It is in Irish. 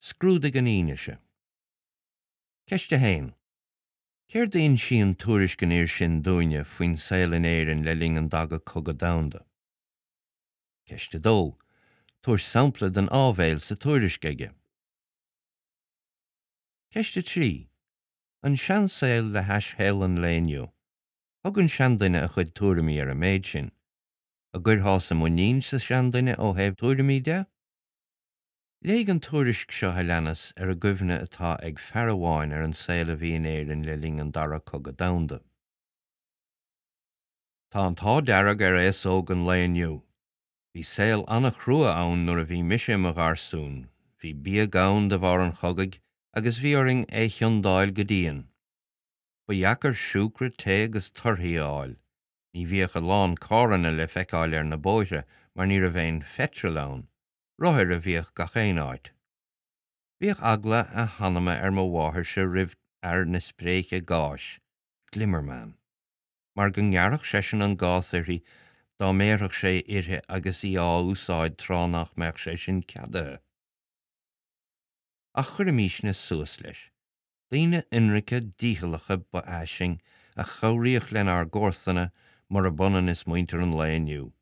Scrúdaigh an fhianaise. Ceist 1. Céard a insíonn tuairisc an fhir sin dúinne faoin saol in Éirinn le linn an Daga Cogadh Domhanda? Ceist 2. Tabhair sampla den áibhéil sa tuairisc aige. Ceist 3. An seansaol le hais shaol an lae inniu. Thug an seanduine a chuid tuairimí ar an méid sin. An gcuirfeása muinín sa seanduine ó thaobh tuairimí de? Léigh an tuairisc seo a leanas ar an gcuimhne atá ag fear amháin ar an saol a bhí in Éirinn le linn an Dara Cogadh Domhanda. Tá an t-ádh dearg ar aos óg an lae inniu. Bhí saol an-chrua ann nuair a bhí mise i mo gharsún. Bhí bia gann de bharr an chogaidh agus bhí orainn é chiondáil go dian. Ba dheacair siúcra, tae agus torthaí a fháil. Ní bhíodh a lán carranna le feiceáil ar na bóithre mar ní raibh aon pheitreal ann. Rothair a bhíodh gach aon áit. Bhíodh eagla a hanama ar mo mháthairse roimh fhear na spréiche gáis, glimmerman, mar go ngearrfadh seisean an gás uirthi dá mbéarfadh sé uirthi agus í á úsáid tráth nach mbeadh sé sin ceadaithe. Ach chuirimísne suas leis. Daoine ionraice dícheallacha ba ea sinn a chabhraíodh lenár gcomharsana, murab ionann is muintir an lae inniu.